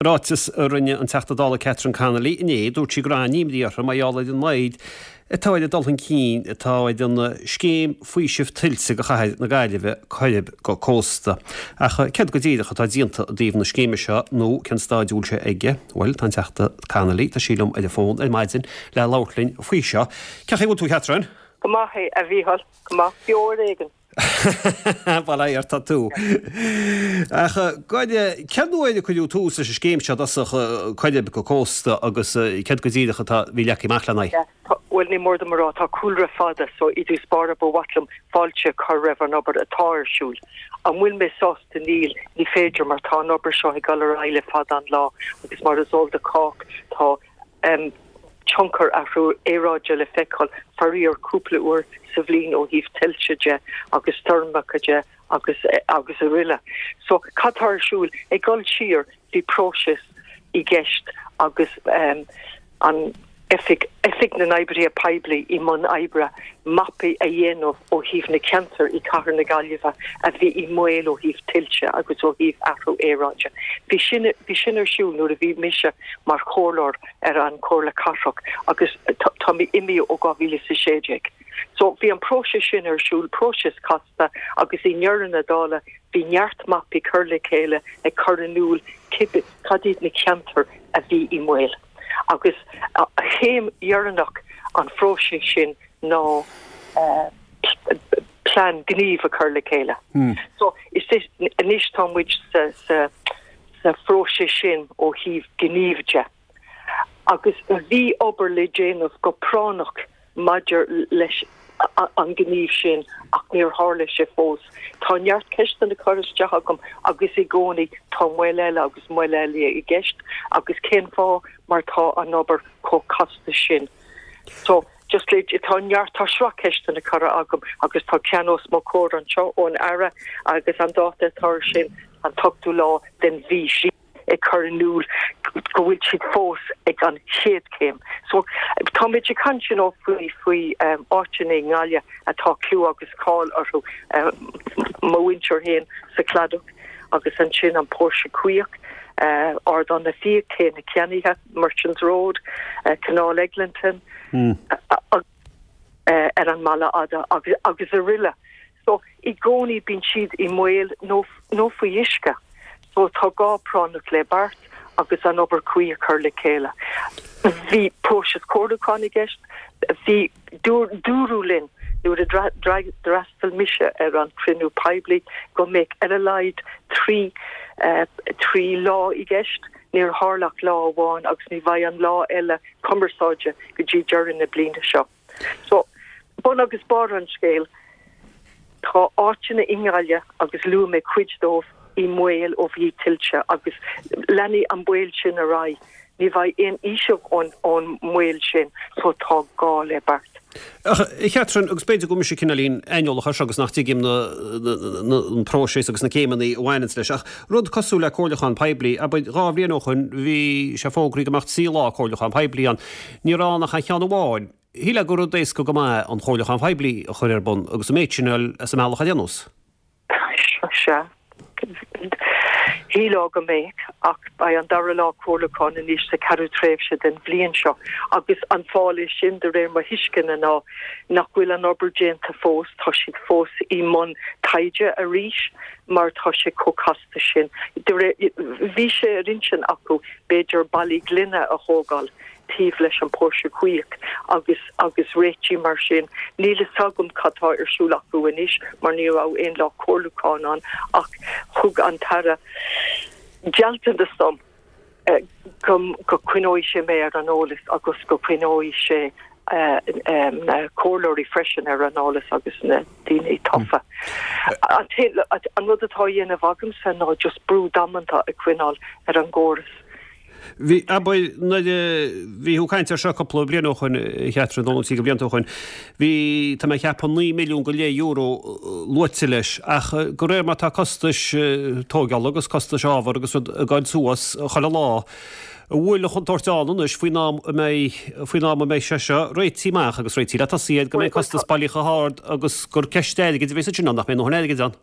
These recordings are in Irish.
Ráiteas a rinne an Teachta Dála Catherine Connolly inné, dúirt sí go raibh an-imní uirthi mar gheall ar an moill atá ar an dul chun cinn atá ar an scéim faoisimh tuilte do chathair na Gaillimhe, Coirib go Cósta. Ach céard go díreach atá déanta i dtaobh na scéime seo nó cén staid a bhfuil sé aige? Bhuel, tá an Teachta Connolly, tá sí liom ar an bhfón ar maidin le labhairt linn faoi seo. Cén chaoi a bhfuil tú, a Catherine? Go maith, a Mhícheáil. Go maith. Beo ar éigean. Bail ó Dhia ort, tá tú. Ach cén uair a cuireadh tús leis an scéim seo i dtosach, Coirib go Cósta agus céard go díreach atá bhí leagtha amach lena aghaidh? Bhuel, ní mór dom a rá, tá cúlra fada so i dtús báire ba mhaith liom fáilte a chur roimh an obair atá ar siúl. An bhfuil mé sásta? Níl, ní féidir mar tá an obair seo ag dul ar aghaidh le fada an lá agus mar is eol do chách tá tionchar athrú aeráide le feiceáil, faraor, cúpla uair sa bhliain ó thaobh tuilte de agus stoirmeacha de agus agus aroile. So, cad tá ar siúl? Ag dul siar, bhí próiseas i gceist agus an Oifig, Oifig na nOibrithe Poiblí i mbun oibre, mapaí a dhéanamh ó thaobh na ceantair i Cathair na Gaillimhe a bhí i mbaol ó thaobh tuilte agus ó thaobh athrú aeráide. Bhí sin, bhí sin ar siúl nuair a bhí mise mar chomhairleoir ar an Chomhairle Cathrach agus tá mé imithe ó 2016. So bhí an próiseas sin ar siúl, próiseas casta agus i ndeireadh na dála bhí neart mapaí curtha le chéile ag cur in iúl cibé cad iad na ceantair a bhí i mbaol. Agus chéim dheireanach an phróisis sin ná plean gnímh a chur le chéile. So is anois tá muid sa sa sa phróiseas sin ó thaobh gnímh de. Agus bhí obair le déanamh go práinneach maidir leis an ngníomh sin ach níor tharla sé fós. Tá neart ceisteanna curtha isteach agam agus i gcónaí tá moill eile agus moill eile i gceist agus cén fáth mar tá an obair chomh casta sin. So, just le, tá neart, tá sraith ceisteanna curtha agam agus tá ceann os mo chomhair anseo ón Aire agus an dáta atá air sin an t-ochtú lá den mhí seo ag cur in iúl go bhfuil siad fós ag an chéad chéim. So táimid ag caint you know faoi faoi áiteanna i nGaillimh atá clú agus cáil orthu, mo mhuintir féin sa Chladach agus ansin an Póirse Caoch, Ardán na bhFiach, Cé na Ceannaithe, Merchants Road, Canáil Eglinton, ar an mBaile Fhada agus aroile. So, i gcónaí bíonn siad i mbaol nó nó faoi uisce. So, tá gá práinneach le beart agus an obair cuí a chur le chéile. Bhí próiseas comhairliúcháin i gceist. Bhí, dúradh linn nuair a d'fhreastail mise ar an chruinniú poiblí go mbeadh ar a laghad 3 3 lá i gceist. Níor tharla ach lá amháin agus ní bheidh an lá eile cumarsáide go dtí deireadh na bliana seo. So, bun agus barr an scéil, tá áiteanna i nGaillimh, agus luaigh mé cuid dóibh, i mbaol ó thaobh tuilte agus leanfaidh an baol sin ar aghaidh. Ní bheidh aon fhaoiseamh ón mbaol sin so tá gá le beart. Ach, a Chatherine, agus b'fhéidir go bhfuil mise cineáilín aineolach air seo agus nach dtuigim an próiseas agus na céimeanna a bhaineanns leis, ach rud cosúil le comhairliúchán poiblí, abair, 2 bhliain ó shoin bhí sé fógraithe go mbeadh 3 lá comhairliúchán poiblí ann. Ní raibh ann ach an cheann amháin. Shílfeá gur rud éasca go maith an chomhairliúchán phoiblí a chur ar bun agus an méid sin a fháil as an mbealach ar aon nós. Sea. Shílfeá go mbeadh, ach beidh an dara lá comhairliúcháin anois sa cheathrú tréimhse den bhliain seo agus an fáth leis sin, de réir mo thuisceana, ná nach bhfuil an obair déanta fós, tá siad fós i mbun taighde arís mar tá sé chomh casta sin. De réir, bhí sé ar intinn acu b'fhéidir ballaí gloine a thógáil taobh leis an Póirse Caoch agus agus réitigh mar sin. Níl fhios agam cad tá ar siúl acu anois mar ní raibh aon lá comhairliúcháin ann ach thug an tAire gealltanas dom go go coinneoidh sé mé ar an eolas agus go coinneoidh sé na comhairleoirí freisin ar an eolas agus na daoine tofa. An rud atá á dhéanamh agamsa ná just brú damanta a choinneáil ar an gcóras. Bhí, abair, nuair a bhí tú ag caint air seo cúpla bliain ó shoin, a Chatherine, nó trí blianta ó shoin, bhí, tá mé ag ceapadh, €9 milliún go leith luaite leis, ach de réir mar tá costais tóigeála agus costais ábhar agus rud ag goil suas chuile lá, an bhfuil an chontúirt ann anois faoin am a mbeidh, faoin am a mbeidh sé seo réitithe amach agus réitithe le tosaí air, go mbeidh costas bailí chomh hard agus gur ceist airgid a bheas ansin ann, nach mbeidh a ndóthain airgid ann?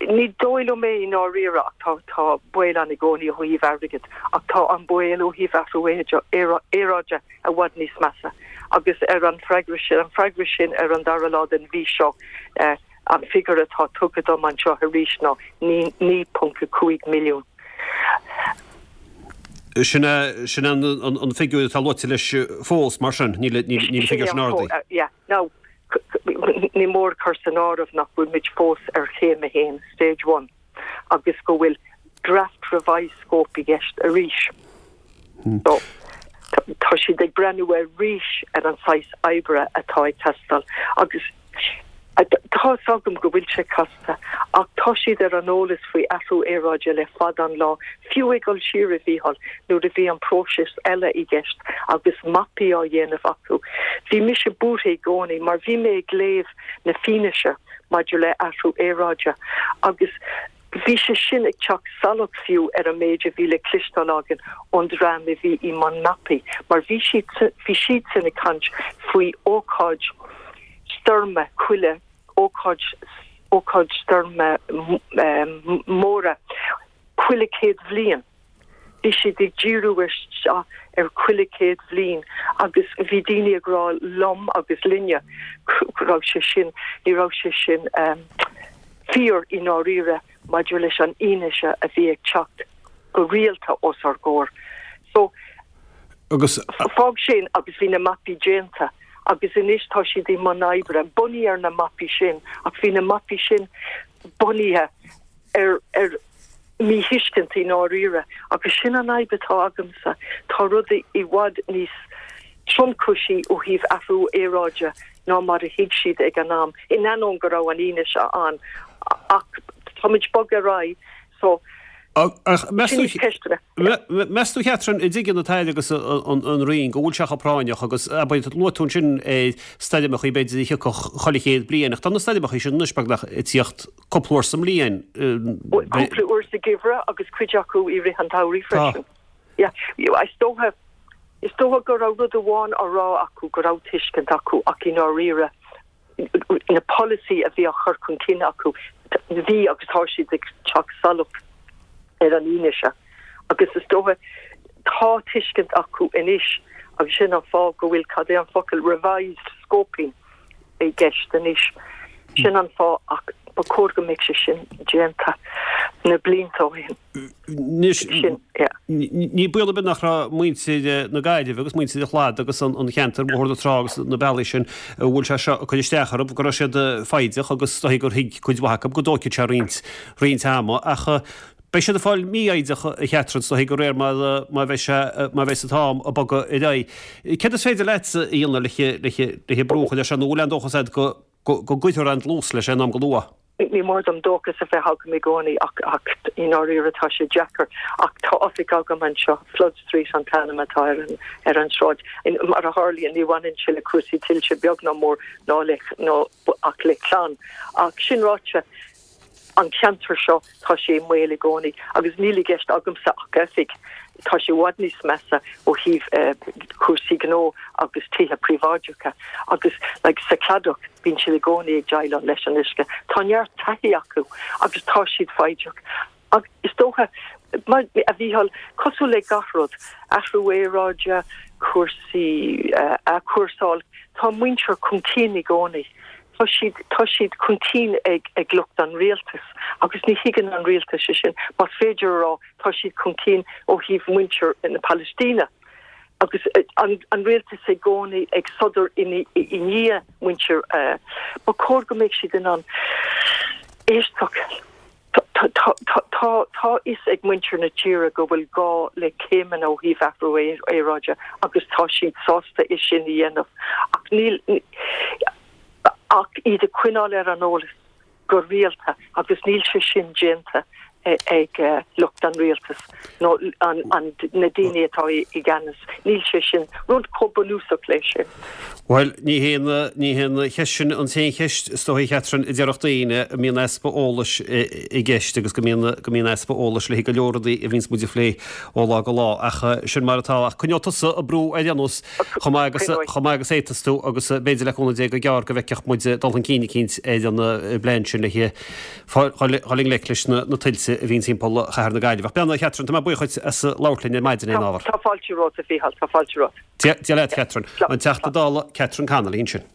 Ní dóigh liom é i ndáiríre ach tá tá baol ann i gcónaí ó thaobh airgid ach tá an baol ó thaobh athrú aeráide i bhfad níos measa agus ar an freagra sin, an freagra sin ar an dara lá den mhí seo, an figiúr atá tugtha dom anseo arís ná 9.5 milliún. Sin é sin an an figiúr atá luaite leis fós mar sin, níl níl an figiúr sin ardaithe. Yeah, now ní mór cur san áireamh nach bhfuil muid fós ar chéim a haon, stage one, agus go bhfuil draft revised scope i gceist arís. So, tá siad ag breathnú arís ar an saghas oibre atá ag teastáil agus Tá 'fhios agam go bhfuil sé casta, ach tá siad ar an eolas faoi athrú aeráide le fada an lá, fiú ag dul siar, a Mhícheáil, nuair a bhí an próiseas eile i gceist agus mapaí á dhéanamh acu. Bhí mise buartha i gcónaí mar bhí mé ag léamh na fianaise maidir le athrú aeráide agus bhí sé sin ag teacht salach fiú ar an méid a bhí le cloisteáil againn ón dream a bhí i mbun mapaí mar bhí siad bhí siadsan ag caint faoi ócáid stoirme chuile ócáid ócáid stoirme móra chuile chéad bhliain. Bhí siad ag díriú isteach ar chuile chéad bhliain agus bhí daoine ag rá liom agus linne go raibh sé sin, ní raibh sé sin fíor i ndáiríre maidir leis an fhianaise a bhí ag teacht go rialta os ár gcomhair. So, Agus. fág sin agus bhí na mapaí déanta agus anois tá siad i mbun oibre bunaithe ar na mapaí sin ach bhí na mapaí sin bunaithe ar ar míthuiscint i ndáiríre, agus sin an fhadhb atá agamsa, tá rudaí i bhfad níos tromchúisí ó thaobh athrú aeráide ná mar a thuig siad ag an am, in ainneoin go raibh an fhianaise ann, ach táimid ag bogadh ar aghaidh, so Ach meas sin tú, ceisteanna. meas tú a Chatherine, an dtuigeann an tAire agus an Roinn go bhfuil sé chomh práinneach agus, abair, luaigh tú ansin stoirmeachaí b'fhéidir a thiocfadh chuile chéad bliain, ach tá na stoirmeachaí sin anois beagnach ag tíocht cúpla uair sa mbliain. Cúpla uair sa gheimhreadh agus cuid acu i rith an tsamhraidh freisin. Yeah, is dócha, is dócha go raibh rud amháin á rá acu, go raibh tuiscint acu ach i ndáiríre na polasaí a bhí á chur chun cinn acu, bhí agus tá siad ag teacht salach ar an fhianaise agus is dócha tá tuiscint acu anois agus sin an fáth go bhfuil, cad é an focal, revised scoping. i gceist anois. Sin an fáth ach ba chóir go mbeadh sé sin déanta na blianta ó shin. Anois, ní baol ar bith nach raibh muintir na Gaillimhe agus muintir an Chladaigh agus an cheantair, Bóthar na Trá agus na bealaí sin, a bhfuil sé seo ag cur isteach orthu, go raibh siad foighdeach agus is dóichí gur thuig cuid mhaith acu go dtógfaidh sé roinnt, roinnt ama ach Beidh siad ag fáil mífhoighdeach, a Chatherine, is dóichí, de réir mar mar bheidh sé, mar bheidh an t-am ag bogadh ar aghaidh. Céard is féidir leatsa a dhéanamh le brú a chur air seo, nó an bhfuil aon dóchas agat go go gcuirfear aon dlús leis aon am go luath? Ní mór dom dóchas a bheith agam i gcónaí ach ach i ndáiríre tá sé deacair. Ach tá oifig agam anseo, Flood Street an t-ainm atá ar an ar an sráid. Mar a tharlaíonn ní bhaineann sé le cúrsaí tuilte beag ná mór ná le ná ach le clann. Ach sin ráite, An ceantar seo, tá sé i mbaol i gcónaí agus níl i gceist agamsa ach oifig. Tá sé i bhfad níos measa ó thaobh cúrsaí gnó agus tithe príobháideacha agus like sa Chladach bíonn siad i gcónaí ag déileáil leis an uisce. Tá neart taithí acu agus tá siad foighdeach. Ach is dócha, mar, a Mhícheáil, cosúil le gach rud, athrú aeráide, cúrsaí athchúrsáil, tá muintir chun cinn i gcónaí. Tá siad, tá siad chun cinn ag, ag lucht an rialtais agus ní thuigeann an rialtas é sin. Más féidir a rá, tá siad chun cinn ó thaobh muintir na Palaistíne agus an, an rialtas i gcónaí ag sodar i ndiaidh muintir. Ba chóir go mbeadh siad in ann éisteacht. Tá a fhios ag muintir na tíre go bhfuil gá le céimeanna ó thaobh athrú aeráide agus tá siad sásta é sin a dhéanamh ach níl ach iad a choinneáil ar an eolas go rialta agus níl sé sin déanta. ag lucht an rialtais nó na daoine atá i gceannas. Níl sé sin rud chomh bunúsach leis sin. Bhuel, ní hé ní hé an cheist sin an t-aon cheist, is dóigh, a Chatherine, a déarfadh daoine, go mbíonn easpa eolais i gceist agus go mbíonn go mbíonn easpa eolais le go leor rudaí a bhíonns muid a phlé ó lá go lá. Ach sin mar atá. Ach coinneoidh tusa ag brú ar aon nós chomh maith agus chomh maith agus a fhéadfas tú agus b'fhéidir le cúnamh Dé go gearr go bhfeicfeadh muid dul chun cinn eicínt ar an bplean sin le dhul i ngleic leis na tuilte a bhíonn timpeall chathair na Gaillimhe. Ach beannacht, a Chatherine, tá mé buíoch dhuit as labhairt linn ar maidin ar an ábhar. Tá fáilte romhat, a Mhícheáil, tá fáilte romhat. Dia leat, Catherine. An Teachta Dála Catherine Connolly ansin.